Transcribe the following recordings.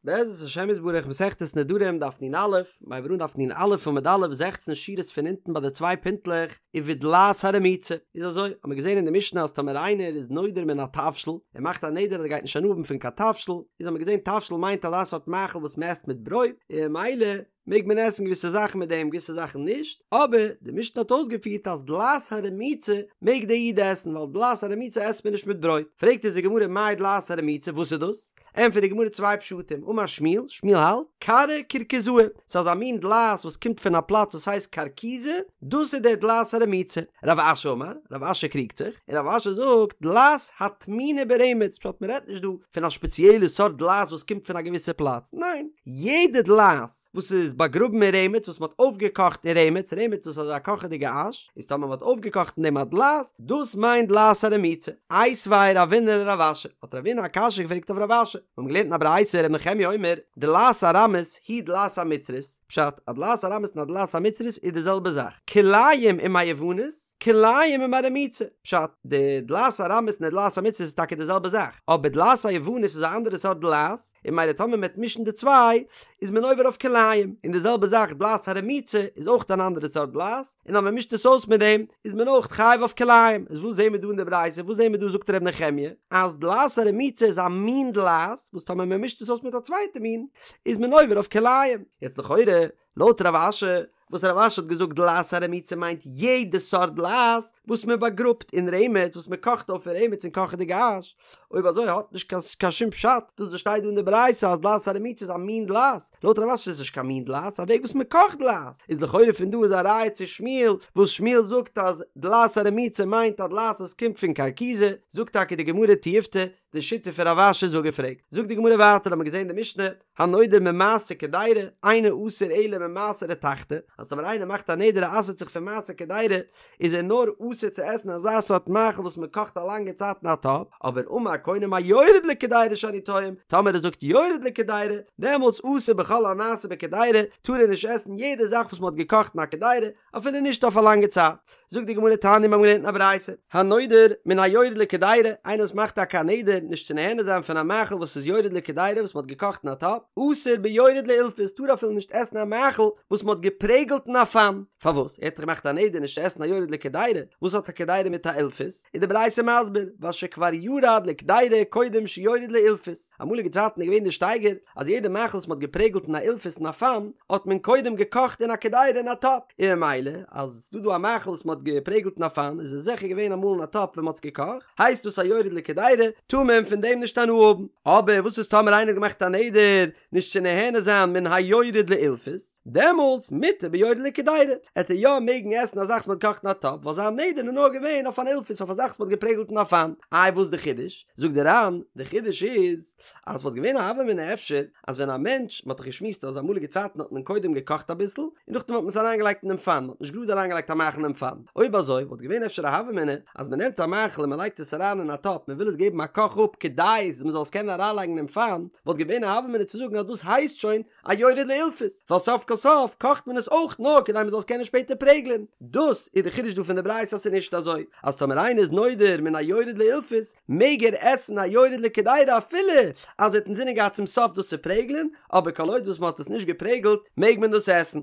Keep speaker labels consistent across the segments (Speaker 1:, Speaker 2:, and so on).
Speaker 1: בעזרת השם יתברך מסכת נדרים דף נ"א, מ'הייבט אן דף נ"א עמוד א' זעכצן שורות פון אונטן ביי די צוויי פינטלעך, ובדלעת הרמוצה, איז אזוי, האמיר געזען אין די משנה אז טאמער איינער איז נודר מן התבשיל, ער מאכט א נדר אז ער גייט נישט הנאה האבן פון קיין תבשיל, איז האמיר געזען תבשיל מיינט אזא סארט מאכל וואס מ'עסט מיט ברויט, און ממילא מעג מען עסן געוויסע זאכן מיט דעם געוויסע זאכן נישט, אבער די משנה האט אויסגעפירט אז דלעת הרמוצה מעג דער איד עסן ווייל דלעת הרמוצה עסט מען נישט מיט ברויט, פרעגט אונז די גמרא מאי דלעת הרמוצה וואס איז דאס? ענטפערט די גמרא צוויי פשטים, אמר שמואל, שמואל האלט, כרעא קרקזאי, ס'איז אזא מין דלעת וואס קומט פון א פלאץ וואס הייסט קרקיזא, דאס איז דער דלעת הרמוצה. רב אשי אמר, רב אשי קריגט זיך, און רב אשי זאגט, דלעת הטמונה ברמץ, פשט מ'רעדט נישט דא פון א שפעציעלע סארט דלעת וואס קומט פון א געוויסע פלאץ, ניין, יעדע דלעת וואס איז באגראבן אין רמץ, וואס מ'האט אויפגעקאכט אין רמץ, רמץ דאס איז אזא קאכעדיגע אש, איז טאמער מ'האט אויפגעקאכט אין דעם א דלעת, דאס מיינט דלעת הרמוצה. איתיביה רבינא לרב אשי, האט רבינא א קשיא געפרעגט אויף רב אשי, מיר האבן געלערנט אין א ברייתא ר' נחמיה אומר, דלעת ארמית היא דלעת המצרית, פשט, א דלעת ארמית און א דלעת המצרית איז די זעלבע זאך, כלאים עם היוונית, כלאים עם הרמוצה, פשט, די דלעת ארמית און די דלעת המצרית איז טאקע די זעלבע זאך, אבער דלעת היוונית איז א אנדערע סארט דלעת, און ממילא טאמער מ'וועט מישן די צוויי, איז מען עובר אויף כלאים, און די זעלבע זאך דלעת הרמוצה איז אויך אן אנדערע סארט דלעת, און אז מען מישט עס אויס מיט דעם איז מען אויך חייב אויף כלאים, איז וואס זעהן מיר דא אין די ברייתא, וואס זעהן מיר דא זאגט ר' נחמיה אז דלעת הרמוצה איז א מין דלעת וואס טאמער מען מישט עס אויס מיט א צווייטע מין איז מען עובר אויף כלאים, יעצט לכאורה לויט רב אשי וואס רב אשי האט געזאגט דלעת הרמוצה מיינט יעדע סארט דלעת וואס מען באגראבט אין רמץ וואס מען קאכט אויף אין רמץ אין קאכעדיגע אש, אויב אזוי האט נישט קיין קיין שום פשט דאס וואס שטייט דא אין די ברייתא אז דלעת הרמוצה איז א מין דלעת, לויט רב אשי איז עס נישט קיין מין דלעת, ס'איז א וועג וואס מען קאכט דלעת, איז לכאורה פון דא איז א ראיה צו שמואל וואס שמואל זאגט אז דלעת הרמוצה מיינט א דלעת וואס קומט פון קרקיזא, זאגט טאקע די גמרא תיובתא, די שיטה פון רב אשי איז אפגעפרעגט, זאגט די גמרא ווייטער האט מען געזען די משנה, הנודר ממעשה קדירה, אינו אסור אלא ממעשה רתחתא, אז טאמער איינער מאכט א נדר ער אסר'ט זיך פון מעשה קדירה, איז ער נאר אסור צו עסן אזא סארט מאכל וואס מען קאכט א לאנגע צייט אין א טאפ, אבער אמר קונה מהיורד לקדירה שאני טועם, טאמער ער זאגט יורד לקדירה, דעמאלטס אסור בכל הנעשה בקדירה, טאר ער נישט עסן יעדע זאך וואס מען האט געקאכט אין א קדירה, אפילו נישט אויף א לאנגע צייט. זאגט די גמרא תניא מיר האבן געלערנט אין א ברייתא, הנודר מן היורד לקדירה, איינער וואס מאכט טאקע א נדר נישט צו נהנה זיין פון א מאכל וואס איז יורד לקדירה וואס מען האט געקאכט אין א טאפ, אסור ביורד לאילפס, טאר אפילו נישט עסן א מאכל וואס מען האט געפרעגלט אין א פאן. פארוואס? ער האט דאך געמאכט א נדר נישט צו עסן א יורד לקדירה, וואס האט א קדירה מיט א אילפס? איז די ברייתא מסביר, ווייל שכבר ירד לקדירה קודם שיורד לאילפס, אמאליגע צייטן איז געווען די שטייגער אז יעדע מאכל וואס מען האט געפרעגלט אין א אילפס אין א פאן, האט מען קודם געקאכט אין א קדירה אין א טאפ, און ממילא אז ס'דא דא א מאכל וואס מען האט געפרעגלט אין א פאן איז עס זיכער געווען אמאל אין א טאפ ווען מען האט עס געקאכט, הייסט דאס א יורד לקדירה, טאר מען פון דעם נישט הנאה האבן. אבער וואס איז טאמער איינער האט געמאכט א נדר נישט צו נהנה זיין מן היורד לאילפס? דעמאלטס מותר ביורד לקדירה, עט ער יא מעגן עסן א זאך וואס מ'האט געקאכט אין א טאפ, ווייל זיין נדר איז נאר געווען אויף אן אילפס אויף א זאך וואס מ'האט געפרעגלט אין א פאן. איי וואס די חידוש? זאגט די ר"ן, די חידוש איז, אז ס'וואלט געווען א הוה אמינא אפשר, אז ווען א מענטש, מ'האט דאך געשמועסט אז אמאליגע צייטן האט מען קודם געקאכט אביסל, און נאכדעם האט מען עס אריינגעלייגט אינעם פאן, מ'האט נישט גראד אריינגעלייגט א מאכל אינעם פאן. אויב אזוי וואלט געווען אפשר א הוה אמינא, אז מ'נעמט א מאכל און מ'לייגט עס אריין אין א טאפ, מ'וויל עס געבן א קאך אפ כדי מ'זאל עס קענען אריינלייגן אינעם פאן, וואלט געווען א הוה אמינא צו זאגן אז דאס הייסט שוין א יורד לאילפס, ווייל סוף כל סוף קאכט מען עס אויך נאר כדי מען זאל עס קענען שפעטער פרעגלען. דאס איז די חידוש דא פון די ברייתא אז ס'איז נישט אזוי אז טאמער איינער איז נודר מן היורד לאילפס מעג ער עסן א יורד לקדירה אפילו אז ער האט אינזינען געהאט צום סוף דאס צו פרעגלען, אבער כל עוד וואס מען האט עס נישט געפרעגלט מעג מען דאס עסן.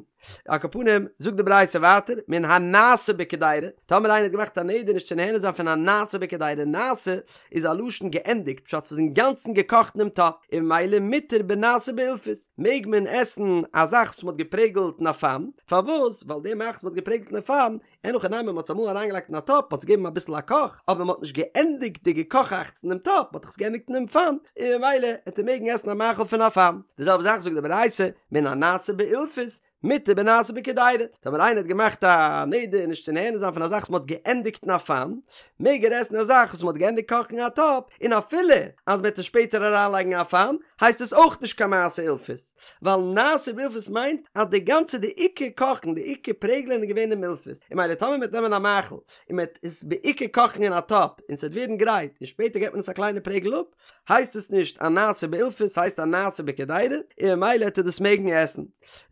Speaker 1: על כל פנים, זאגט די ברייתא ווייטער, מן הנעשה בקדירה, טאמער איינער האט געמאכט א נדר נישט צו נהנה זיין פון הנעשה בקדירה, נעשה איז א לשון געענדיגט, פשט ס'איז אינגאנצן געקאכט אינעם טאפ, און ממילא מותר בנעשה באילפס, מעג מען עסן א זאך וואס מ'האט געפרעגלט אין א פאן, פארוואס? ווייל די מאכל וואס מ'האט געפרעגלט אין א פאן, אין הכי נמי מ'האט עס אמאל אריינגעלייגט אין א טאפ, מ'האט עס געגעבן אביסל א קאך, אבער מ'האט נישט געענדיגט די געקאכאכטס אינעם טאפ, מ'האט דאך עס געענדיגט אינעם פאן, און ממילא העט ער מעגן עסן א מאכל פון א פאן. די זעלבע זאך זאגט די ברייתא, מן הנעשה באילפס, מותר בנעשה בקדירה, טאמער איינער האט געמאכט א נדר נישט צו נהנה זיין פון א זאך וואס מ'האט געענדיגט אין א פאן, מעג ער עסן א זאך וואס מ'האט געענדיגט קאכן אין א טאפ, און אפילו אז מ'וועט עס שפעטער אריינלייגן אין א פאן, הייסט עס אויך נישט קיין מעשה אילפס, ווייל נעשה באילפס מיינט אז די גאנצע די עיקר קאכן די עיקר פרעגלען איז געווען אין אילפס, און ממילא טאמער מ'וועט נעמען א מאכל און מ'וועט עס בעיקר קאכן אין א טאפ און ס'וועט ווערן גרייט און שפעטער געט מען עס א קליינע פרעגל אפ, הייסט עס נישט א נעשה באילפס ס'הייסט א נעשה בקדירה און ממילא העט ער דאס מעגן עסן.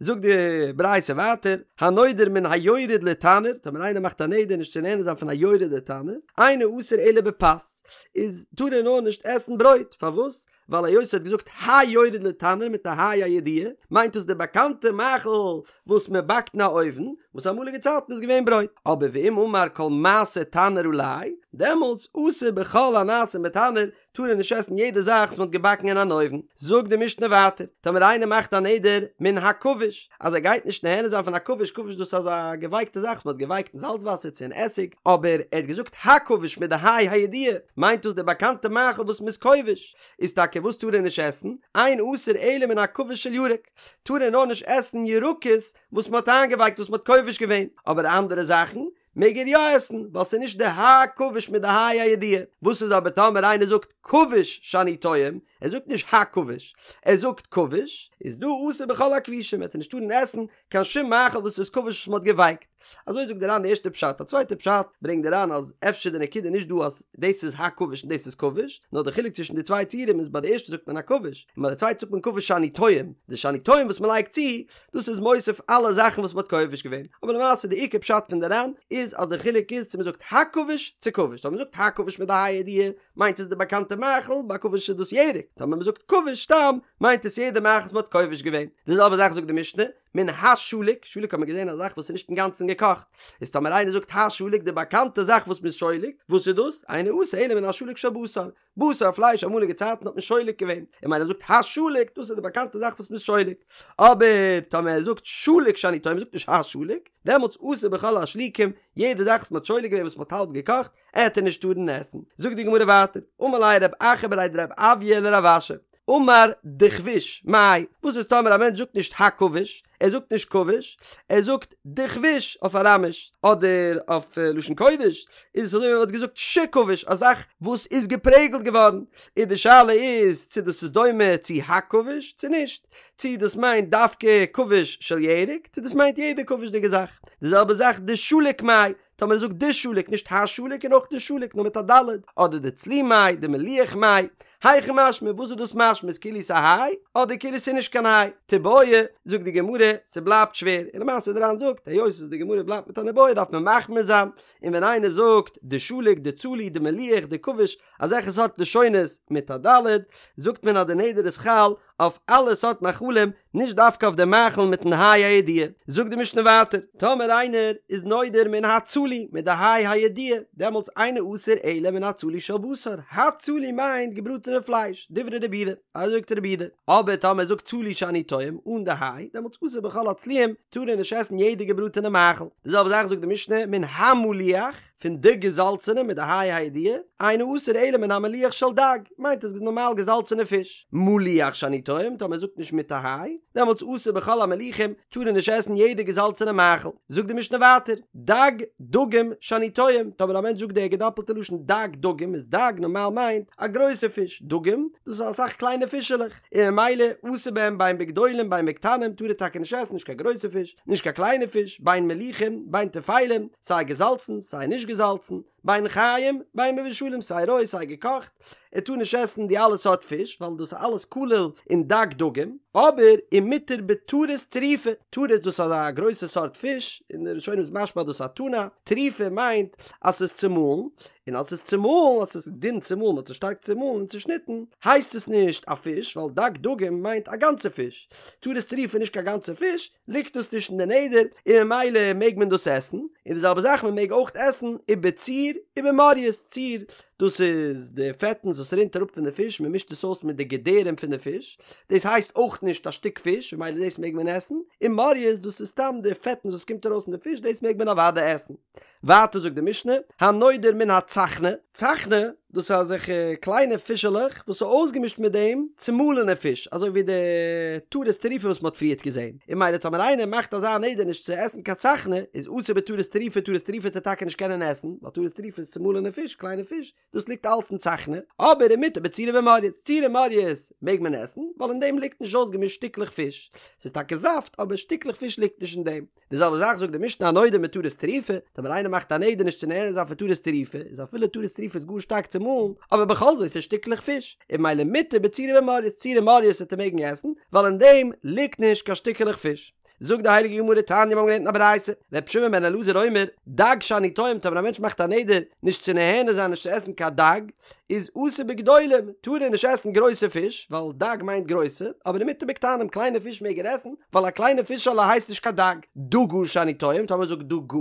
Speaker 1: זאגט די ברייתא ווייטער, הנודר מן היורד לתנור, טאמער איינער מאכט א נדר נישט צו נהנה זיין פון א יורד לתנור, אינו אסור אלא בפת, איז טאר ער נאר נישט עסן ברויט, פארוואס? ווייל היות ער האט געזאגט היורד לתנור מיט א ה' הידיעה, מיינט עס די באקאנטע מאכל וואס מען באקט אין א אויוון, וואס אמאליגע צייטן איז געווען ברויט. אבער ואם אמר כל מעשה תנור עלי, דעמאלטס אסור בכל הנעשים בתנור, טאר ער נישט עסן יעדע זאך וואס מען האט געבאקן אין אן אויוון. זאגט די משנה ווייטער, טאמער איינער מאכט א נדר מן הכבוש, אז ער גייט נישט נהנה זיין פון א כבוש, כבוש דאס איז אזא געווייקטע זאך וואס מען האט געווייקט אין זאלץ וואסער צו אין עסיג, אבער ער האט געזאגט הכבוש מיט די ה' הידיעה, מיינט דאס די באקאנטע מאכל וואס מען איז כובש, איז טאקע וואס טאר ער נישט עסן? אין אסור אלא מן הכבוש של ירק, טאר ער נאר נישט עסן ירקות וואס מען האט איינגעווייקט וואס מען האט כובש געווען, אבער אנדערע זאכן מעג ער יא עסן, ווייל ס'איז נישט די הכבוש מיט די ה' הידיעה. וואס איז אבער טאמער איינער זאגט כבוש שאני טועם, ער זאגט נישט הכבוש, ער זאגט כבוש, איז דא אסור בכל הכבושים, וועט ער נישט טארן עסן קיין שום מאכל וואס איז כבוש וואס מ'האט געווייקט. אזוי זאגט די ר"ן די ערשטע פשט. א צווייטע פשט ברענגט די ר"ן אז אפשר די נקודה נישט דא אז דאס איז הכבוש און דאס איז כבוש, נאר די חילוק צווישן די צוויי ציורים איז ביי די ערשטע זאגט מען הכבוש, און ביי די צווייטע זאגט מען כבוש שאני טועם, די שאני טועם וואס מ'לייגט צו, דאס איז מוסיף אלע זאכן וואס מ'האט כובש געווען, אבער למעשה די עיקר פשט פון די ר"ן איז אז די חילוק איז צו מ'זאגט הכבוש צו כבוש, טאמער מ'זאגט הכבוש מיט די ה' הידיעה מיינט עס די באקאנטע מאכל, ביי כבוש איז דאס ירק, טאמער מ'זאגט כבוש סתם מיינט עס יעדע מאכל וואס מ'האט כובש געווען. די זעלבע זאך זאגט די משנה, מן השלוק, שלוק האט מען געזען א זאך וואס איז נישט אינגאנצן געקאכט, איז טאמער איינער זאגט השלוק די באקאנטע זאך וואס מ'איז שולק, וואס איז דאס? אינו אסור אלא מן השלוק של בשר, בשר פלייש אמאליגע צייטן האט מען שולק געווען, און ממילא זאגט השלוק דאס איז די באקאנטע זאך וואס מ'איז שולק, אבער טאמער ער זאגט שלוק שאני טועם מ'זאגט נישט השלוק, דעמאלטס אסור בכל השלוקים, יעדע זאך וואס מ'האט שולק געווען וואס מ'האט האלב געקאכט, עט ער נישט טארן עסן. זאגט די גמרא ווייטער, אמר ליה רב אחא בריה דרב אויא לרב אשי, אמר דכביש, מאי, וואס איז טאמער א מענטש זאגט נישט הכבוש, ער זאגט נישט כבוש, ער זאגט דכביש אויף אראמיש, אדער אויף לשון קודש, איז עס אזוי ווי מען וואלט געזאגט שכבוש, א זאך וואס איז געפרעגלט געווארן, און די שאלה איז צו דאס איז דומה צו הכבוש צו נישט, צו דאס מיינט דווקא כבוש של ירק, צו דאס מיינט יעדע כבוש'דיגע זאך. די זעלבע זאך דשליק מאי, טאמער ער זאגט דשליק נישט השליק און אויך נישט שלוק נאר מיט א ד', אדער דצלי מאי, דמליח מאי, היכי משמע, וואס איז דאס משמע איז כאילו ס'איז א היי אדער כאילו ס'איז נישט קיין היי? תיבעי, זאגט די גמרא, ס'בלייבט שווער, און למעשה די ר"ן זאגט, היות וואס די גמרא בלייבט מיט אן איבעיא דארף מען מחמיר זיין, און ווען איינער זאגט דשליק, דצלי, דמליח, דכביש, אזעלכע סארט לשונות מיט א ד', זאגט מען אז די נדר איז חל אויף אלע סארט מאכלים, נישט דווקא אויף די מאכל מיטן ה' הידיעה. זאגט די משנה ווייטער, טאמער איינער איז נודר מן הצלי מיט די ה' הידיעה, דעמאלטס אינו אסור אלא מן הצלי של בשר, הצלי מיינט געבראטענע פלייש, דברי רבי יהודה, אזוי זאגט רבי יהודה. אבער טאמער ער זאגט צלי שאני טועם אן די ה', דעמאלטס אסור בכל הצלויים, טאר ער נישט עסן יעדע געבראטענע מאכל. די זעלבע זאך זאגט די משנה מן המליח, פון די געזאלצענע מיט די ה' הידיעה, אינו אסור אלא מן המליח של דג, מיינט עס נארמאל געזאלצענע פיש. מליח שאני טועם, טאמער ער זאגט נישט מיט א ה', דעמאלטס אסור בכל המליחים, טאר ער נישט עסן יעדע געזאלצענע מאכל. זאגט די משנה ווייטער, דג דגים שאני טועם, טאמער א מענטש זאגט די געדאפלטע לשון דג דגים, איז דג נארמאל מיינט א גרויסע פיש, דגים, דאס איז אסאך קליינע פישעלעך, און ממילא אסור בהם בין בגדולים בין בקטנים טאר ער טאקע נישט עסן נישט קיין גרויסע פיש, נישט קיין קליינע פיש, בין מליחים, בין טפלים, סיי געזאלצן, סיי נישט געזאלצן, בין חיים, בין מבושלים, סיי רוי סיי געקאכט, ער טאר נישט עסן די אלע סארט פיש, ווייל דאס איז אלעס כולל אין דג דגים, אבער ומותר בטרית טרופה, טרית דאס איז א גרויסע סארט פיש, אין די ראשונים איז משמע אז דאס איז א טונא, טרופה מיינט אז ס'איז צומאלן, און אז ס'איז צומאלן, אז ס'איז דין צומאלן, מ'האט עס שטארק צומאלן און צושניטן, הייסט עס נישט א פיש, ווייל דג דגים מיינט א גאנצע פיש, טרית טרופה איז נישט קיין גאנצע פיש, ליגט דאס נישט אין די נדר, און ממילא מעג מען דאס עסן, און די זעלבע זאך מען מעג אויך עסן ובציר ובמורייס, ציר דאס איז די פעטנס וואס רינט אראפ פון די פיש, מען מישט עס אויס מיט די געדערים פון די פיש, דאס הייסט אויך נישט א שטיק פיש, ממילא דאס מעג מען עסן, און מורייס דאס איז סתם די פעטנס וואס קומט ארויס פון די פיש, דאס מעג מען אוודאי עסן. ווייטער זאגט די משנה, הנודר מן הצחנה, צחנה, דאס איז אזעלכע קליינע פישעלעך וואס איז אויסגעמישט מיט דעם צומאלענע פיש, אזוי ווי די טרית טרופה וואס מען האט פריערט געזען, און ממילא טאמער איינער מאכט אזא נדר נישט צו עסן קיין צחנה, איז אסור בטרית טרופה, טרית טרופה וועט ער טאקע נישט קענען עסן, ווייל טרית טרופה איז צומאלענע פיש, קליינע פיש, דאס ליגט אלס אין צחנה, אבער ומותר בציר ובמורייס, ציר און מורייס מעג מען עסן, ווייל אין דעם ליגט נישט אויסגעמישט שטיקלעך פיש, ס'איז טאקע זאפט אבער שטיקלעך פיש ליגט נישט אין דעם. די זעלבע זאך זאגט די משנה הנודר מטרית טרופה, טאמער איינער מאכט א נדר נישט צו נהנה זיין פון טרית טרופה, איז אפילו טרית טרופה איז גאר שטארק צומאלן, אבער בכל זאת ס'איז שטיקלעך פיש, און ממילא מותר בציר ובמורייס, ציר און מורייס וועט ער מעגן עסן, ווייל אין דעם ליגט נישט קיין שטיקעלעך פיש. זאגט די הייליגע גמרא תניא מיר האבן געלערנט אין א ברייתא, ר' שמעון בן אלעזר אומר, דג שאני טועם טאמער א מענטש מאכט א נדר נישט צו נהנה זיין נישט צו עסן קיין דג, איז אסור בגדולים, טאר ער נישט עסן גרויסע פיש, ווייל דג מיינט גרויסע, אבער ומותר בקטנים, קליינע פיש מעג ער עסן, ווייל א קליינע פישעלע הייסט נישט קיין דג. דגה שאני טועם, טאמער זאגט דגה,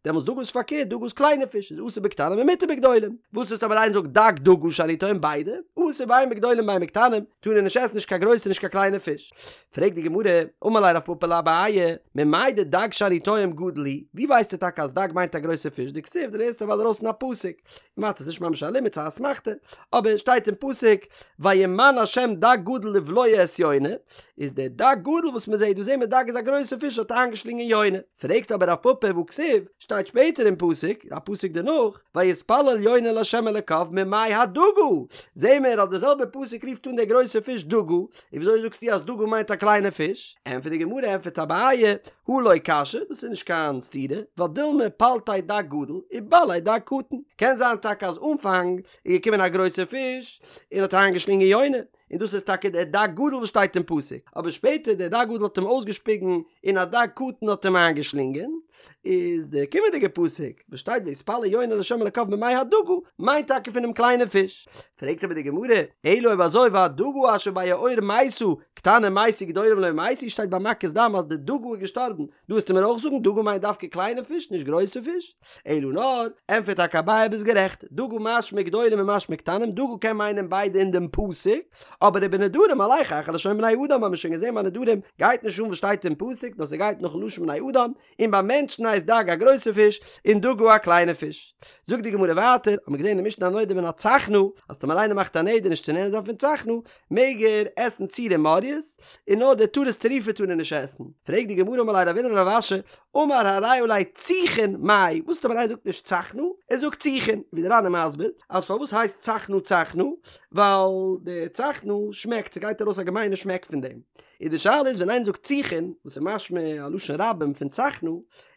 Speaker 1: דעמאלטס דגה איז פארקערט, דגה איז קליינע פיש, איז אסור בקטנים ומותר בגדולים. וואס איז טאמער איינער זאגט דג דגה שאני טועם ביידע, אסור בין בגדולים בין בקטנים, טאר ער נישט עסן נישט קיין גרויסע נישט קיין קליינע פיש. פרעגט די גמרא, אמר ליה רב פפא לאביי, ממאי דדג שאני טועם גדול הוא, ווי ווייסטו טאקע אז דג מיינט א גרויסע פיש, דכתיב דו לערנסט אוודאי ארויס פון א פסוק, כמעט איז נישט ממש א לימוד ס'איז א אסמכתא, אבער שטייט אין פסוק וימן השם דג גדול לבלוע את יונה, איז דער דג גדול וואס מען זעט דא זעהן מיר דג איז א גרויסע פיש האט איינגעשלינגען יונה, פרעגט אבער רב פפא והכתיב, שטייט שפעטער אין פסוק, א פסוק דערנאך, ויתפלל יונה לה' אלוקיו ממעי הדגה, זעהן מיר אז דער זעלבער פסוק רופט אן דער גרויסע פיש דגה, און וויאזוי זאגסטו אז דגה מיינט א קליינע פיש? ענטפערט די גמרא, ענטפערט אביי, הא לא קשיא, דאס איז נישט קיין סתירה, ווייל דילמא פלטיה דג גדול ובלעיה דג קטן, קען זיין טאקע אז אנפאנג איז געקומען א גרויסע פיש און האט איינגעשלינגען יונה, און דאס איז טאקע דער דג גדול וואס שטייט אין פסוק, אבער שפעטער דער דג גדול האט אים אויסגעשפיגן און א דג קטן האט אים איינגעשלינגען, איז דער קומענדיגער פסוק וואס שטייט ויתפלל יונה לה' אלקיו ממעי הדגה מיינט טאקע פונעם קליינעם פיש. פרעגט אבער די גמרא, אלא אויב אזוי והדגה אשר ביאור מתה, קטנים מתו גדולים לא מתו, שטייט ביי מכת דם אז די דגה איז געשטארבן, דא וועסטו מיר אויך זאגן דגה מיינט דווקא קליינע פיש נישט גרויסע פיש? אלא נאר, ענטפערט טאקע אביי ביסט גערעכט, דגה משמע גדולים ומשמע קטנים, דגה קען מיינען ביידע אין דעם פסוק, אבער ובנדרים הולך אחר לשון בני אדם האבן מיר שוין געזען ביי נדרים גייט נישט אן וואס שטייט אין פסוק נאר ס'גייט נאכן לשון בני אדם, און ביי מענטשן הייסט דג א גרויסע פיש און דגה א קליינע פיש. זאגט די גמרא ווייטער, האט מען געזען אין די משנה הנודר מן הצחנה, אז טאמער איינער מאכט א נדר נישט צו נהנה זיין פון צחנה, מעג ער עסן צור און מורייס, און נאר די טרית טרופה טאר ער נישט עסן. פרעגט די גמרא אמר ליה רבינא לרב אשי, אמר הרי עלי ציחין מאי, וואס טאמער איינער זאגט נישט צחנה, ער זאגט ציחין, ווי די ר"ן איז מסביר, אז פארוואס הייסט צחנה צחנה, ווייל די צחנה שמעקט, ס'גייט ארויס א געמיינע שמעק פון דעם. און די שאלה איז ווען איינער זאגט ציחין, וואס איז משמע א לשון רבים פון צחנה,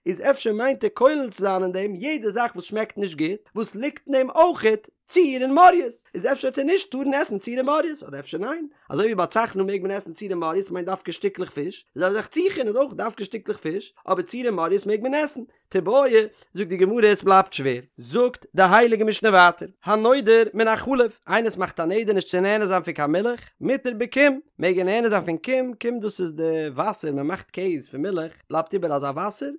Speaker 1: איז אפשר מיינט ער כולל צו זיין אין דעם יעדע זאך וואס שמעקט נישט גוט, וואס ליגט אין דעם אויכעט צור און מורייס, איז אפשר וועט ער נישט טארן עסן צור און מורייס, אדער אפשר ניין, אזוי ווי ביי צחנה מעג מען עסן צור און מורייס מיינט דווקא שטיקלעך פיש, די זעלבע זאך ציחין איז אויך דווקא שטיקלעך פיש, אבער צור און מורייס מעג מען עסן. תיבעי, זאגט די גמרא עס בלייבט שווער. זאגט די הייליגע משנה ווייטער, הנודר מן החלב, איינער וואס מאכט א נדר נישט צו נהנה זיין פון קיין מילך, מותר בקום, מעג ער נהנה זיין פון קום, קום דאס איז די וואסער, מען מאכט קעז פון מילך, בלייבט איבער אזא וואסער,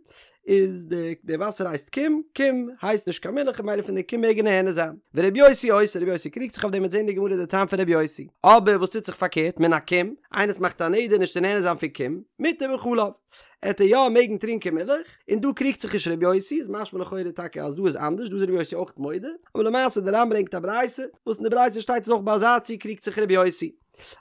Speaker 1: איז די די וואסער הייסט קום, קום הייסט נישט קיין מילך ממילא פון די קום מעג ער נהנה זיין. ורבי יוסי אוסר, רבי יוסי קריגט זיך אויף דעם מ'וועט זען אין די גמרא די טעם פון רבי יוסי. אבער וואס טוט זיך פארקערט, מן הקום, איינער וואס מאכט א נדר נישט צו נהנה זיין פון קום, מותר בחלב. עט ער יא מעגן טרינקען מילך, און דא קריגט זיך נישט רבי יוסי, איז משמע לכאורה טאקע אז דא איז אנדערש, דא איז רבי יוסי אויך מודה, אבער למעשה די ר"ן ברענגט א ברייתא, וואס אין די ברייתא שטייט אז אויך ביי אזא ציור קריגט זיך רבי יוסי.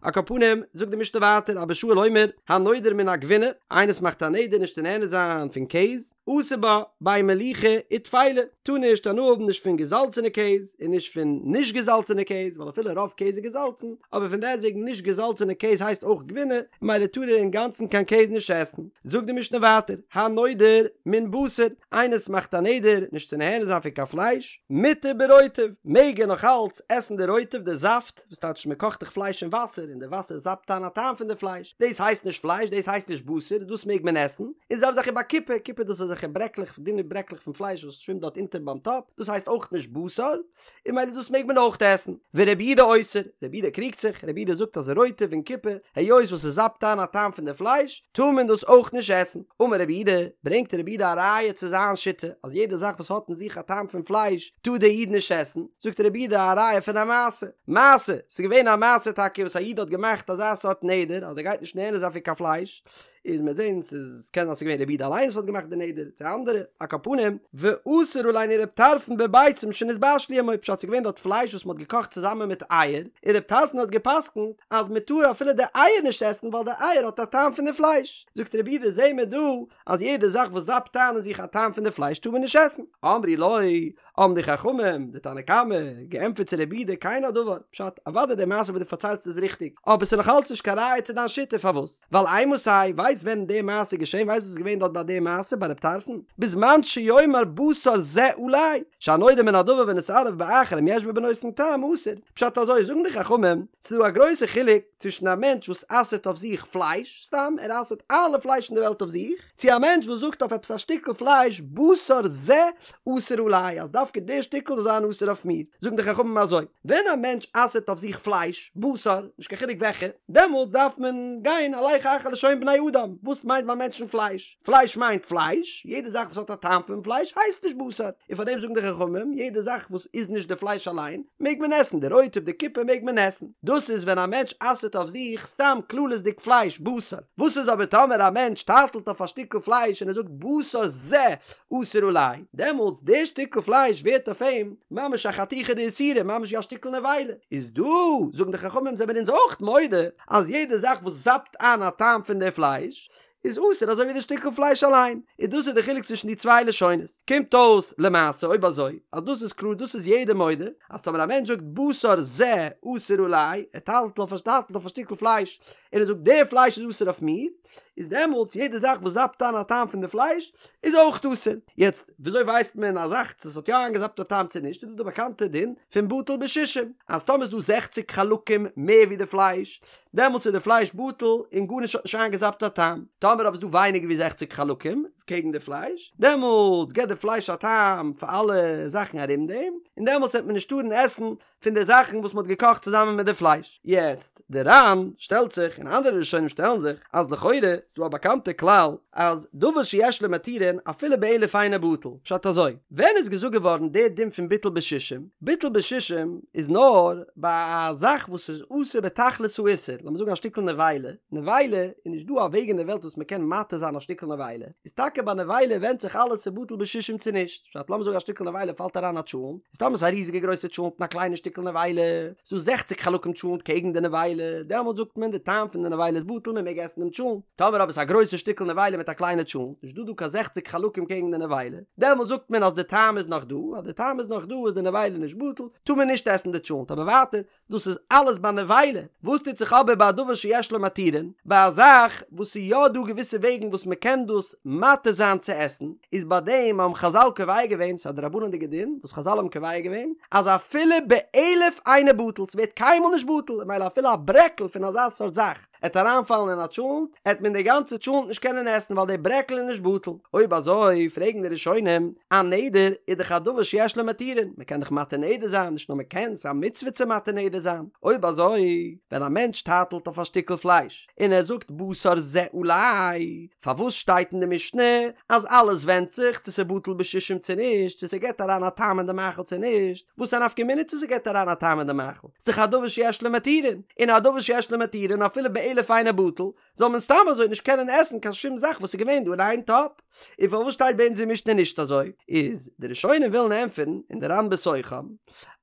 Speaker 1: על כל פנים, זאגט די משנה ווייטער, אבא שאול אומר, הנודר מן הגבינה, איינער וואס מאכט א נדר נישט צו נהנה זיין פון קעז, אסור בה, בין מליחה וטפלה, טאר נישט הנאה האבן נישט פון געזאלצענע קעז, און נישט פון נישט געזאלצענע קעז, ווייל אפילו רוב קעז איז געזאלצן, אבער פון דעסטוועגן נישט געזאלצענע קעז הייסט אויך גבינה, ממילא טאר ער אינגאנצן קיין קעז נישט עסן. זאגט די משנה ווייטער, הנודר מן בשר, איינער וואס מאכט א נדר נישט צו נהנה זיין פון קיין פלייש, מותר ברוטב, מעג ער נאך אלץ עסן די רוטב, די זאפט, וואס טייטש מען קאכט דאך פלייש אין וואסער און די וואסער זאפט איין א טעם פון די פלייש, דאס הייסט נישט פלייש, דאס הייסט נישט בשר, דאס מעג מען עסן, און די זעלבע זאך ובקופה, קופה דאס איז אזעלכע ברעקלעך, דינע ברעקלעך פון פלייש וואס שווימט דארט אונטער ביים טאפ, דאס הייסט אויך נישט בשר, און ממילא דאס מעג מען אויך עסן. ורבי יהודה אוסר, רבי יהודה קריגט זיך, רבי יהודה זאגט אז רוטב און קופה, היות וואס עס זאפט איין א טעם פון די פלייש, טאר מען דאס אויך נישט עסן. אמר רבי יהודה, ברענגט רבי יהודה א ראיה צו זיין שיטה, אז יעדע זאך וואס האט אין זיך א טעם פון פלייש, טאר דער איד נישט עסן, זאגט רבי יהודה א ראיה פון א מעשה, מעשה, ס'איז געווען א מעשה טאקע וואס א איד האט געמאכט אזא סארט נדר אז ער גייט נישט נהנה זיין פון קיין פלייש, איז מ'וועט זען ס'איז קען זיין ס'איז געווען רבי יהודה אליין וואס האט געמאכט די נדר, צו אנדערע, על כל פנים, ואסר עלינו רב טרפון בביצים שנתבשלו עמו, פשט ס'איז געווען דארט פלייש וואס מ'האט געקאכט צוזאמען מיט אייער, און רב טרפון האט גע'פסק'נט אז מ'טאר אפילו די אייער נישט עסן ווייל די אייער האט א טעם פון די פלייש, זאגט רבי יהודה זעהן מיר דא אז יעדע זאך וואס זאפט איין אין זיך א טעם פון די פלייש טאר מען נישט עסן, אמרו לו, האבן די חכמים, די תנא קמא, געענטפערט צו רבי יהודה כן הדבר, פשט, אוודאי די מעשה וואס דו פארציילסט איז ריכטיג, אבער ס'איז נאך אלץ נישט קיין ראיה צו דיין שיטה, פארוואס? ווייל אימתי, ווייסט ווען די מעשה איז געשען, ווייסט וואס איז געווען דארט ביי די מעשה ביי רב טרפון? בזמן שיאמר בשר זה עלי, שהנודר מן הדבר ונתערב באחר אם יש בו בנותן טעם אסור, פשט אזוי זאגן די חכמים, ס'איז דא א גרויסע חילוק. צווישן א מענטש וואס אסר'ט אויף זיך פלייש, סתם ער אסר'ט אלע פלייש אין די וועלט אויף זיך, צו א מענטש וואס זאגט אויף עפעס א שטיקל פלייש בשר זה אסור עלי אז דווקא די שטיקל זאל זיין אסור אויף מיר, זאגן די חכמים אזוי, ווען א מענטש אסר'ט אויף זיך פלייש, בשר, נישט קיין חילוק וועלכע, דעמאלטס דארף מען גיין הלך אחר לשון בני אדם, וואס מיינט ביי מענטשן פלייש? פלייש מיינט פלייש, יעדע זאך וואס האט א טעם פון פלייש הייסט נישט בשר, און פאר דעם זאגן די חכמים, יעדע זאך וואס איז נישט די פלייש אליין, מעג מען עסן, די רוטב, די קופה מעג מען עסן. דאס איז ווען א מענטש אסר'ט אויף זיך סתם כללית'דיג פלייש, בשר. וואס איז אבער טאמער א מענטש טייטלט אויף א שטיקל פלייש און ער זאגט בשר זה אסור עלי, דעמאלטס די שטיקל פלייש ווערט אויף אים ממש א חתיכה דאיסורא, ממש ווי א שטיקל נבילה. איז דא, זאגן די חכמים, זעמיר אונז אויך מודה אז יעדע זאך וואס זאפט איין א טעם פון די פלייש, איז אסור אזוי ווי די שטיקל פלייש אליין, און דאס איז די חילוק צווישן די צוויי לשונות. קומט אויס למעשה אויב אזוי אז דאס איז קלאר דאס איז יעדער מודה אז טאמער א מענטש זאגט בשר זה אסור עלי, ער טייטלט אויף א טייטלט אויף א שטיקל פלייש און ער זאגט די פלייש איז אסור אויף מיר, איז דעמאלטס יעדע זאך וואס זאפט איין א טעם פון די פלייש איז אויך אסור. יעצט וויאזוי ווייסט מען א זאך צו עס האט יא איינגעזאפט א טעם צו נישט איז דא די באקאנטע דין פון בטל בשישים אז טאמער איז דא זעכציק חלקים מער ווי די פלייש דעמאלטס איז די פלייש בטל און גארנישט האט נישט איינגעזאפט א טעם. טאמער אבער איז דא ווייניגער ווי זעכציק חלקים קעגן די פלייש, דעמאלטס געבט די פלייש א טעם פאר אלע זאכן ארום דעם, און דעמאלטס וועט מען נישט טארן עסן פון די זאכן וואס מען האט געקאכט צוזאמען מיט די פלייש. יעצט, די ר"ן שטעלט זיך און אנדערע ראשונים שטעלן זיך אז לכאורה איז דא א באקאנטע כלל אז דבר שיש לו מתירין אפילו באלף אינו בטל, פשט אזוי, ווען איז געזאגט געווארן די דין פון ביטול בשישים? ביטול בשישים איז נאר ביי א זאך וואס איז אסור בתכלית האיסור, לאמיר זאגן א שטיקל נבילה, נבילה איז נישט דא א וועג אין די וועלט וואס מען קען מתיר זיין א שטיקל נבילה, איז טאקע ביי נבילה ווענדט זיך אלעס צו בטל בשישים צו נישט, פשט לאמיר זאגן א שטיקל נבילה פאלט אריין א טשולנט, איז טאמער ס'איז א ריזיגע גרויסע טשולנט און א קליינע שטיקל נבילה, איז דא זעכציק חלקים טשולנט קעגן די נבילה, דעמאלט זאגט מען די טעם פון די נבילה איז בטל מען מעג עסן דעם טשולנט, טאמער אבער ס'איז א גרויסע שטיקל נבילה מיט א קליינע טשולנט, נישט דא דא קיין זעכציק חלקים קעגן די נבילה, דעמאלט זאגט מען אז די טעם איז נאך דא, אז די טעם איז נאך דא איז די נבילה נישט בטל, טאר מען נישט עסן די טשולנט, אבער ווייטער, דאס איז אלעס ביי נבילה, וואס טוט זיך אבער ביי א דבר שיש לו מתירין, ביי א זאך וואס ס'איז יא דא געוויסע וועגן וואס מ'קען דאס מתיר זיין צו עסן, איז ביי דעם האבן חזל קובע געווען, ס'איז א דרבנן'דיגע דין וואס חזל האבן קובע געווען, אז אפילו באלף אינו בטל, ס'ווערט קיינמאל נישט בטל, ממילא אפילו א ברעקל פון אזא סארט זאך, עט אריינפאלן אין א טשולנט, עט מען די גאנצע טשולנט נישט קענען עסן ווייל די ברעקל איז נישט בטל. אויב אזוי פרעגן די ראשונים, א נדר איז דאך א דבר שיש לו מתירין, מען קען דאך מתיר נדר זיין, נישט נאר מען קען, ס'איז א מצוה צו מתיר נדר זיין. אויב אזוי, ווען א מענטש טייטלט אויף א שטיקל פלייש, און ער זאגט בשר זה עלי, פארוואס שטייט אין די משנה אז אלעס ווענדט זיך צו ס'בטל בשישים צו נישט, צו ס'געט אריין א טעם אין די מאכל צו נישט, וואס א נפקא מינה צו ס'געט אריין א טעם אין די מאכל? ס'דאך א דבר שיש לו מתירין, און א דבר שיש לו מתירין אפילו באלף אינו בטל, זאל מען סתם אזוי נישט קענען עסן קיין שום זאך וואס איז געווען דא אין איין טאפ. און פארוואס שטייט ביי אונז אין משנה נישט אזוי? איז די ראשונים ווילן ענטפערן, און די ר"ן בתוכם,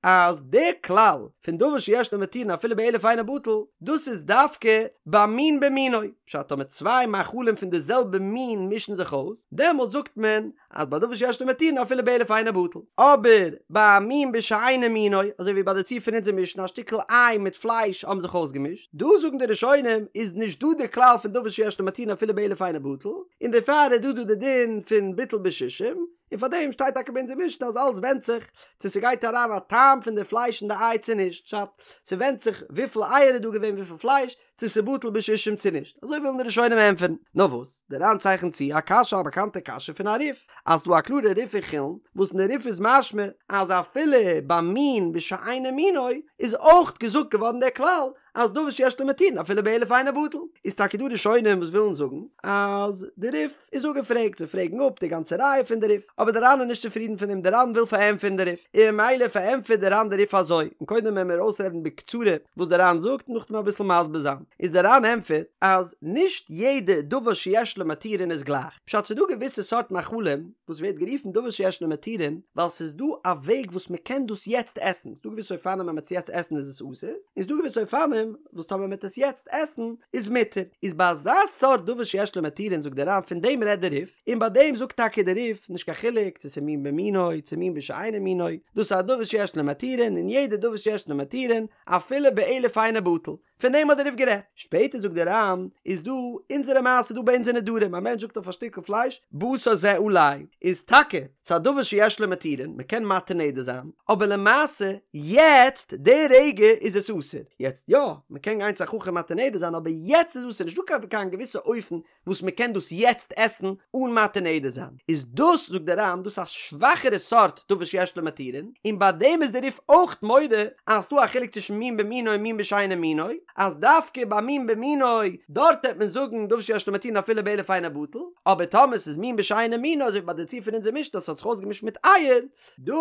Speaker 1: אז די כלל פון דבר שיש לו מתירין אפילו באלף אינו בטל, דאס איז דווקא ביי מין במינו, פשט טאמער צוויי מאכלים פון די זעלבע מין מישן זיך אויס, דעמאלט זאגט מען אז ביי דבר שיש לו מתירין אפילו באלף אינו בטל, אבער ביי א מין בשאינו מינו, אזוי ווי ביי די ציור פון אונזער משנה א שטיקל איי מיט פלייש האבן זיך אויסגעמישט, דא זאגן די ראשונים איז נישט דא די כלל פון דבר שיש לו מתירין אפילו באלף אינו בטל, און דערפאר איז דא דא די דין פון ביטול בשישים, און פאר דעם שטייט טאקע ביי אונזער משנה אז אלעס ווענדט זיך צו ס'גייט אריין א טעם פון די פלייש אין די איי צו נישט, פשט, ס'ווענדט זיך וויפיל אייער איז דא געווען וויפיל פלייש, צו ס'בטל בשישים צו נישט, אזוי ווילן די ראשונים ענטפערן. נאר וואס, דער ר"ן צייכנט צו א קשיא א באקאנטע קשיא פון א רי"ף, אז ס'דא א קלארע רי"ף אין חולין, וואס אין די רי"ף איז משמע אז אפילו ביי מין בשאינו מינו איז אויך געזאגט געווארן דער כלל אז דבר שיש לו מתירין אפילו באלף אינו בטל. איז טאקע דא ראשונים וואס ווילן זאגן אז די רי"ף איז אפגעפרעגט, זיי פרעגן אפ די גאנצע ראיה פון די רי"ף, אבער די ר"ן איז נישט צופרידן פון דעם, די ר"ן וויל פארענטפערן די רי"ף, און ממילא פארענטפערט די ר"ן די רי"ף אזוי, און קודם וועלן מיר אויסרעדן בקצרה וואס די ר"ן זאגט און נאכדעם אביסל מסביר זיין, איז די ר"ן ענטפערט אז נישט יעדע דבר שיש לו מתירין איז גלייך, פשט ס'איז דא געוויסע סארט מאכלים וואס ווערט גערופן דבר שיש לו מתירין ווייל ס'איז דא א וועג וואס מ'קען דאס יעצט עסן, ס'איז דא געוויסע אופנים ווען מ'עט עס יעצט עסן איז עס אסור, און ס'איז דא געוויסע אופנים וואס טאמער מ'עט עס יעצט עסן איז מותר, איז ביי אזא סארט דבר שיש לו מתירין זאגט דער ר"ן פון דעם רעדט דער רי"ף, און ביי דעם זאגט טאקע דער רי"ף נישט קיין חילוק צו ס'איז מין במינו צו מין בשאינו מינו, דאס איז א דבר שיש לו מתירין און יעדע דבר שיש לו מתירין אפילו באלף אינו בטל. פון דעם האט דער רי"ף גערעדט. שפעטער זאגט דער ר"ן, איז דא אונזערע מעשה דא ביי אונזער נדרים, א מענטש זאגט אויף א שטיקל פלייש, בשר זה עלי, איז טאקע ס'איז א דבר שיש לו מתירין, מ'קען מתיר נדר זיין, אבער למעשה יעצט די רגע איז עס אסור, יעצט יא, מ'קען גיין צו א חכם מתיר נדר זיין אבער יעצט איז אסור, נישטא קיין קיין געוויסע אופן וואס מ'קען דאס יעצט עסן אן מתיר נדר זיין, איז דאס זאגט דער ר"ן דאס א שוואכערע סארט דבר שיש לו מתירין, און ביי דעם איז דער רי"ף אויך מודה אז ס'דא א חילוק צווישן מין במינו און מין בשאינו מינו, אז דווקא ביי מין במינו דארט העט מען זאגן דבר שיש לו מתירין אפילו באלף אינו בטל, אבער טאמער ס'איז מין בשאינו מינו אזוי ווי ביי די ציור פון אונזער משנה אז ס'האט זיך אויסגעמישט מיט אייער, דא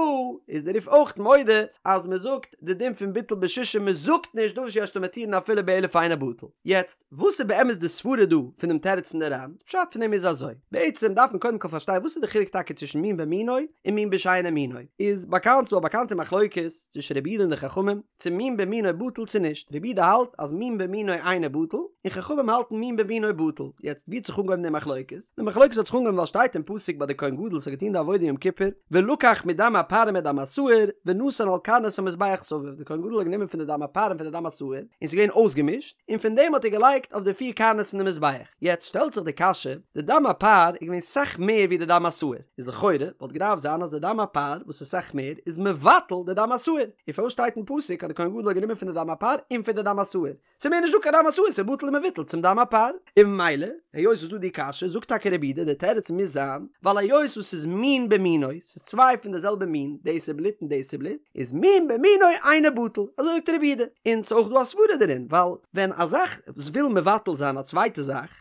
Speaker 1: איז דער רי"ף אויך מודה אז מ'זאגט די דין פון ביטול בשישים מ'זאגט נישט דבר שיש לו מתירין אפילו באלף אינו בטל. יעצט, וואס איז באמת די סברה דא פון דעם תירוץ פון די ר"ן? די פשט פון דעם איז אזוי, בעצם דארף מען קודם כל פארשטיין וואס איז די חילוק טאקע צווישן מין במינו און מין בשאינו מינו, איז באקאנט ס'דא א באקאנטע מחלוקת צווישן רבי יהודה און די חכמים, צו מין במינו בטל צו נישט, רבי יהודה האלט אז מין במינו אינו בטל, און חכמים האלטן מין במינו בטל, יעצט ווי האט זיך אנגעהויבן די מחלוקת? די מחלוקת האט זיך אנגעהויבן ווייל שטייט אין פסוק ביי די כהן גדול וואס האט געטון די עבודה יום כיפור, ולקח מדם הפר ומדם השעיר ונתן על קרנות המזבח סביב, די כהן גדול האט גענומען פון די דם הפר און פון די דם השעיר, און ס'איז געווען אויסגעמישט, און פון דעם האט ער געלייגט אויף די פיר קרנות פון די מזבח. יעצט שטעלט זיך די קשיא, די דם הפר איז געווען סאך מער ווי די דם השעיר, איז לכאורה וואלט געדארפט זיין אז די דם הפר וואס איז סאך מער איז מבטל די דם השעיר, און פארוואס שטייט אין פסוק אז די כהן גדול האט גענומען פון די דם הפר און פון די דם השעיר? ס'איז מער נישט דא קיין דם השעיר, ס'איז בטל ומבוטל צום דם הפר. און ממילא, היות ס'איז דא די קשיא, זאגט טאקע רבי יהודה, די תירוץ מוז זיין, ווייל היות וואס ס'איז מין במינו, ס'איז צוויי פון די זעלבע מין, דאס איז בלוט און דאס איז בלוט, איז מין במינו אינו בטל, אזוי זאגט רבי יהודה, און ס'איז אויך דא א סברא דערין, ווייל ווען א זאך וויל מבטל זיין א צווייטע זאך,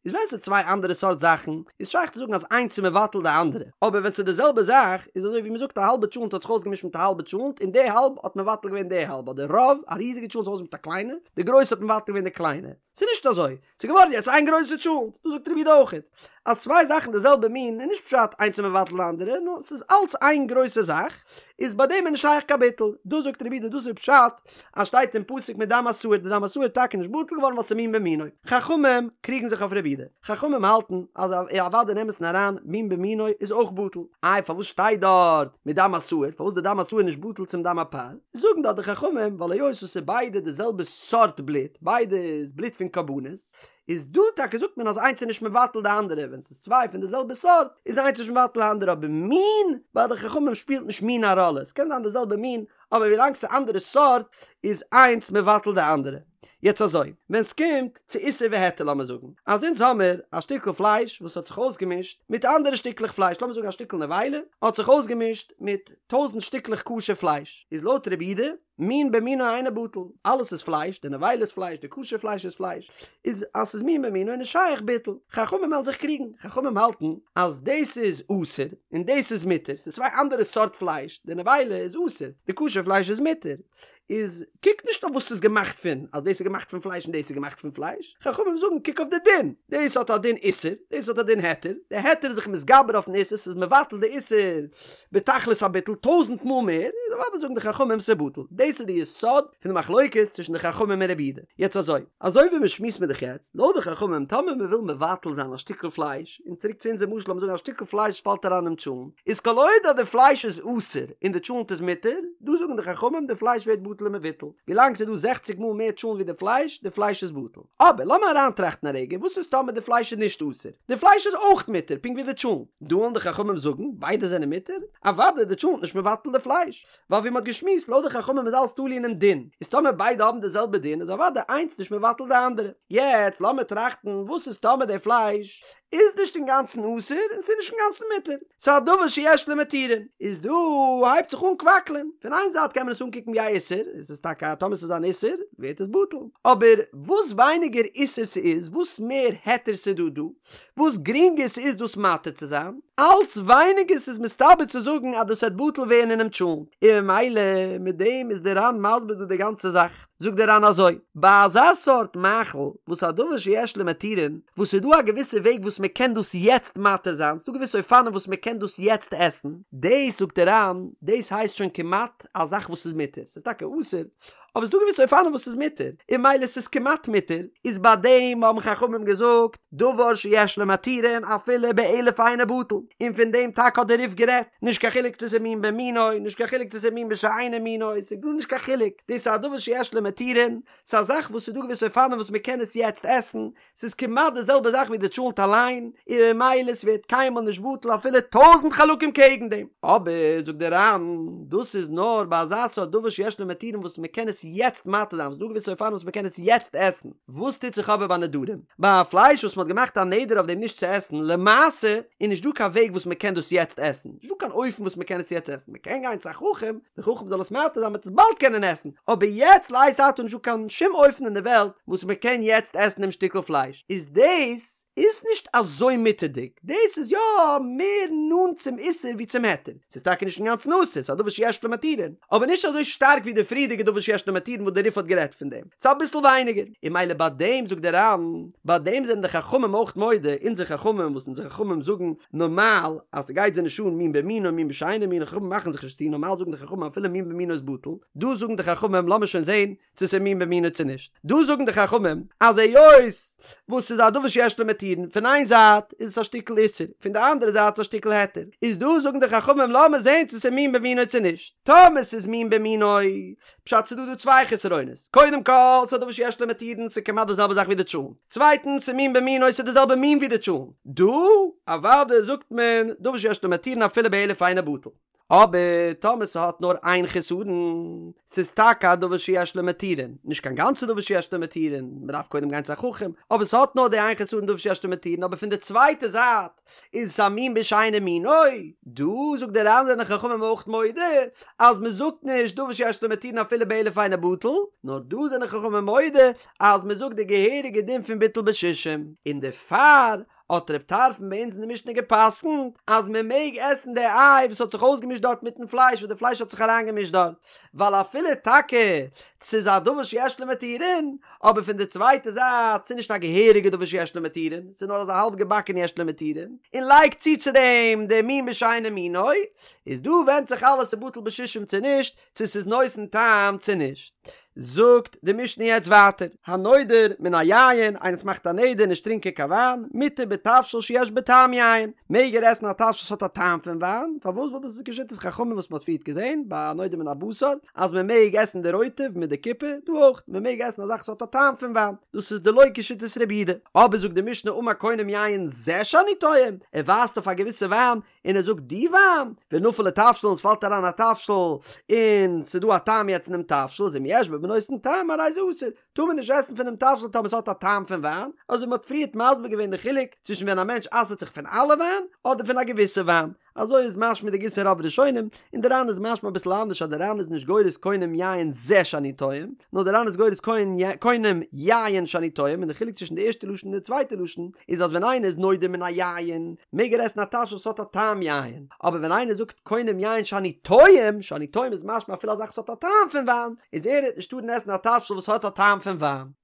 Speaker 1: איז ווען ס'איז צוויי אנדערע סארט זאכן, איז שייך צו זאגן אז איינס איז מבטל די אנדערע, אבער ווען ס'איז די זעלבע זאך, איז אזוי ווי מ'זאגט א האלבע טשולנט האט זיך אויסגעמישט מיט א האלבע טשולנט און די האלב האט מבטל געווען די האלב, אדער רוב, א ריזיגע טשולנט האט זיך אויסגעמישט מיט א קליינע, די גרויסע האט מבטל געווען די קליינע. ס'איז נישט אזוי, ס'איז געווארן יעצט איין גרויסע טשולנט, דאס זאגט רבי יהודה אויכעט, אז צוויי זאכן די זעלבע מין איז נישט פשט איינס איז מבטל די אנדערע, נאר ס'איז אלץ איין גרויסע זאך, איז ביי דעם איז נישט שייך קיין ביטול, דאס זאגט רבי יהודה דאס איז פשט אז שטייט אין פסוק מדם השעיר די דם השעיר איז טאקע נישט בטל געווארן ווייל ס'איז מין במינו, חכמים קריגן זיך אויף רבי יהודה, חכמים האלטן אז אוודאי אין אמת'ן אריין מין במינו איז אויך בטל, איי פארוואס שטייט דארט מדם השעיר, פארוואס די דם השעיר נישט בטל צום דם הפר? זאגן דארט די חכמים ווייל היות עס איז ביידע די זעלבע סארט בלוט, ביידע איז בלוט פון קרבנות, איז דא טאקע זאגט מען אז איינס איז נישט מבטל די אנדערע, ווען ס'איז צוויי פון די זעלבע סארט איז איינס נישט מבטל די אנדערע, אבער מין, ביי די חכמים שפילט נישט מין א ראלע, עס קען זיין די זעלבע מין, אבער ווילאנג ס'איז אנדערע סארט איז איינס מבטל די אנדערע. יעצט אזוי, ווען ס'קומט צו איסור והיתר לאמיר זאגן אז אונז האמיר א שטיקל פלייש וואס האט זיך אויסגעמישט מיט אנדערע שטיקלעך פלייש, לאמיר זאגן א שטיקל נבילה האט זיך אויסגעמישט מיט טויזנט שטיקלעך כשר פלייש, איז לויט רבי יהודה, מין במינו אינו בטל, אלעס איז פלייש, די נבילה איז פלייש, די כשר פלייש איז פלייש, איז אז ס'איז מין במינו איז נישט שייך ביטול. חכמים וועלן זיך קריגן, חכמים האלטן אז דאס איז אסור און דאס איז מותר, ס'איז צוויי אנדערע סארט פלייש, די נבילה איז אסור, די כשר פלייש איז מותר, איז קוק נישט אויף וואס ס'איז געמאכט פון, אז דאס איז געמאכט פון פלייש און דאס איז געמאכט פון פלייש, חכמים זאגן קוק אויף די דין, דאס האט א דין איסור, דאס האט א דין היתר, די היתר איז זיך מתגבר אויפן איסור, ס'איז מבטל די איסור בתכלית הביטול טויזנט מאל מער, איז אוודאי זאגן די חכמים ס'איז בטל, דאס איז די יסוד פון די מחלוקת צווישן די חכמים און רבי יהודה. יעצט אזוי, אזוי ווי מ'שמועסט מיר דאך יעצט, לויט די חכמים טאמער מ'וויל מבטל זיין א שטיקל פלייש, און צוריק צו אונזער משל לאמיר זאגן א שטיקל פלייש פאלט אריין אינעם טשולנט, איז כל עוד אז די פלייש איז אסור און די טשולנט איז מותר, דא זאגן די חכמים די פלייש ווערט בטל ומבוטל, ווילאנג ס'איז דא זעכציג מאל מער טשולנט ווי די פלייש, די פלייש איז בטל. אבער לאמיר אריינטראכטן א רגע, וואס איז טאמער די פלייש איז נישט אסור? די פלייש איז אויך מותר פונקט ווי די טשולנט, דא וועלן די חכמים זאגן ביידע זענען מותר? אוודאי די טשולנט נישט מבטל די פלייש, ווייל ווי מ'האט געשמועסט לויט די חכמים איז אלעס תלוי אינעם דין, איז טאמער ביידע האבן די זעלבע דין איז אוודאי איינס נישט מבטל די אנדערע. יעצט לאמיר טראכטן וואס איז טאמער די פלייש איז נישט אינגאנצן אסור און ס'איז נישט אינגאנצן מותר, ס'איז א דבר שיש לו מתירין, איז דא הייבט זיך אן קוואקלען, פון איין זייט קען מען עס אנקוקן ווי א איסור, עס איז טאקע טאמער ס'איז אן איסור ווערט עס בטל, אבער וואס ווייניגער איסור ס'איז, וואס מער היתר ס'איז דא דא, וואס גרינגער ס'איז דאס מתיר צו זיין, אלץ ווייניגער ס'איז מסתבר צו זאגן אז דאס וועט בטל ווערן אינעם טשולנט, און ממילא מיט דעם איז די ר"ן מסביר דא די גאנצע זאך. זאגט דער ר"ן אזוי, ביי אזא סארט מאכל וואס א דבר שיש לו מתירין, וואס ס'איז דא א געוויסע וועג וואס מען קען דאס יעצט מתיר זיין, ס'דא געוויסע אופנים וואס מען קען דאס יעצט עסן, דאס זאגט דער ר"ן, דאס הייסט שוין כמעט א זאך וואס איז מותר, ס'איז טאקע אסור, אבער ס'דא געוויסע אופנים וואס ס'איז מותר, און ממילא ס'איז כמעט מותר, איז ביי דעם האבן חכמים געזאגט דבר שיש לו מתירין אפילו באלף אינו בטל, און פון דעם טאקע האט דער רי"ף גערעדט, נישט קיין חילוק צו ס'איז מין במינו, נישט קיין חילוק צו ס'איז מין בשאינו מינו, ס'איז גארנישט קיין חילוק, דאס איז א דבר שיש לו מתירין, ס'איז א זאך וואס ס'איז דא געוויסע אופנים וואס מ'קען עס יעצט עסן, ס'איז כמעט די זעלבע זאך ווי די טשולנט אליין, און ממילא ס'ווערט קיינמאל נישט בטל אפילו טויזענט חלקים קעגן דעם. אבער, זאגט דער ר"ן, דאס איז נאר ביי אזא סארט דבר שיש לו מתירין וואס מ'קען עס יעצט מתיר זיין, וואס ס'איז דא געוויסע אופנים וואס מ'קען עס יעצט עסן. וואס טוט זיך אבער ביי נדרים? ביי א פלייש וואס מ'האט געמאכט א נדר אויף דעם נישט צו עסן, למעשה איז נישט דא קיין וועג וואס מ'קען דאס יעצט עסן, נישט דא קיין אופן וואס מ'קען עס יעצט עסן, מ'קען גיין צו א חכם, דער חכם זאל עס מתיר זיין מ'וועט עס באלד קענען עסן, אבער יעצט לעת עתה נישט דא קיין שום אופן אין די וועלט וואס מ'קען יעצט עסן דעם שטיקל פלייש, איז דאס איז נישט אזוי מותר'דיג, דאס איז יא מער נאנט צום איסור ווי צום היתר, ס'איז טאקע נישט אינגאנצן אסור, ס'איז א דבר שיש לו מתירין, אבער נישט אזוי שטארק ווי די פריערדיגע דבר שיש לו מתירין וואס דער רי"ף האט גערעדט פון דעם, ס'איז אביסל ווייניגער, און ממילא ביי דעם זאגט דער ר"ן, ביי דעם זענען די חכמים אויך מודה, אונזער חכמים וואס אונזער חכמים זאגן נארמאל אז ס'גייט זיי נישט אן מין במינו מין בשאינו מינו, חכמים מאכן זיך נישט צו, נארמאל זאגן די חכמים אפילו מין במינו איז בטל, דא זאגן די חכמים לאמיר שוין זען צו ס'איז מין במינו צו נישט. דא זאגן די חכמים אז היות וואס ס'איז א דבר שיש לו מתירין, פון איין זייט איז עס א שטיקל איסור, פון די אנדערע זייט איז א שטיקל היתר, איז דא זאגן די חכמים לאמיר זען צו ס'איז מין במינו צו נישט. טאמער ס'איז מין במינו, פשט ס'איז דא דא צוויי חסרונות, קודם כל ס'איז א דבר שיש לו מתירין ס'איז כמעט די זעלבע זאך ווי די טשולנט, צווייטנס ס'איז מין במינו ס'איז די זעלבע מין ווי די טשולנט, דא אוודאי זאגט מען דבר שיש לו מתירין אפילו באלף אינו בטל. אבער טאמער ס'האט נאר איין חסרון, ס'איז טאקע א דבר שיש לו מתירין, נישט קיין גאנצע דבר שיש לו מתירין, מ'דארף קודם גיין צו א חכם, אבער ס'האט נאר די איין חסרון דבר שיש לו מתירין, אבער פון די צווייטע זייט איז עס א מין בשאינו מינו, דא זאגט דער ר"ן זענען חכמים אויך מודה אז מ'זאגט נישט דבר שיש לו מתירין אפילו באלף אינו בטל, נאר דא זענען חכמים מודה אז מ'זאגט די געהעריגע דין פון ביטול בשישים, און דערפאר האט ר' טרפון ביי אונז אין די משנה גע'פסק'נט אז מען מעג עסן די איי וואס האט זיך אויסגעמישט דארט מיטן פלייש וואס די פלייש האט זיך אריינגעמישט דארט, ווייל אפילו טאקע ס'איז א דבר שיש לו מתירין, אבער פון די צווייטע זייט ס'איז נישט א געהעריגע דבר שיש לו מתירין, ס'איז נאר אזא האלב געבאקענע יש לו מתירין, און לייג צו צו דעם די מין בשאינו מינו, איז דא ווענדט זיך אלעס צו בטל בשישים צו נישט, צו ס'איז נותן טעם צו נישט. זאגט די משנה יעצט ווייטער, הנודר מן היין, איינער וואס מאכט א נדר נישט טרינקען קיין וויין, מותר בתבשיל שיש בו טעם יין, מעג ער עסן א תבשיל וואס האט א טעם פון וויין, פארוואס ווייל דאס איז כשיטת חכמים וואס מ'האט פריערט געזען ביי הנודר מן הבשר, אז מ'מעג עסן די רוטב מיט די קופה, דא אויך, מ'מעג עסן א זאך וואס האט א טעם פון וויין, דאס איז דלא כשיטת רבי יהודה. אבער זאגט די משנה אמר קונם יין זה שאני טועם, ער ווייזט אויף א געוויסע וויין, און ער זאגט די וויין, ונפל לתבשיל און ס'פאלט אריין א תבשיל, און ס'איז דא א טעם יעצט אינעם תבשיל, איז אם יש בו בנותן טעם הרי זה אסור, טאר מען נישט עסן פונעם תבשיל טאמער ס'האט א טעם פון וויין, אזוי מ'האט פריערט מסביר געווען די חילוק צווישן ווען א מענטש אסר'ט זיך פון אלע וויין, אדער פון א געוויסע וויין, אזוי איז משמע די גירסא רוב ראשונים, און די ר"ן איז משמע אביסל אנדערש אז די ר"ן איז נישט גורס קונם יין זה שאני טועם, נאר די ר"ן איז גורס קונם יין שאני טועם, און די חילוק צווישן די ערשטע לשון און די צווייטע לשון איז אז ווען איינער איז נודר מן היין מעג ער עסן א תבשיל וואס האט א טעם יין, אבער ווען איינער זאגט קונם יין שאני טועם, שאני טועם איז משמע אפילו א זאך וואס האט א טעם פון וויין, איז ער וועט נישט טארן עסן א תבשיל וואס האט א טעם פון וויין.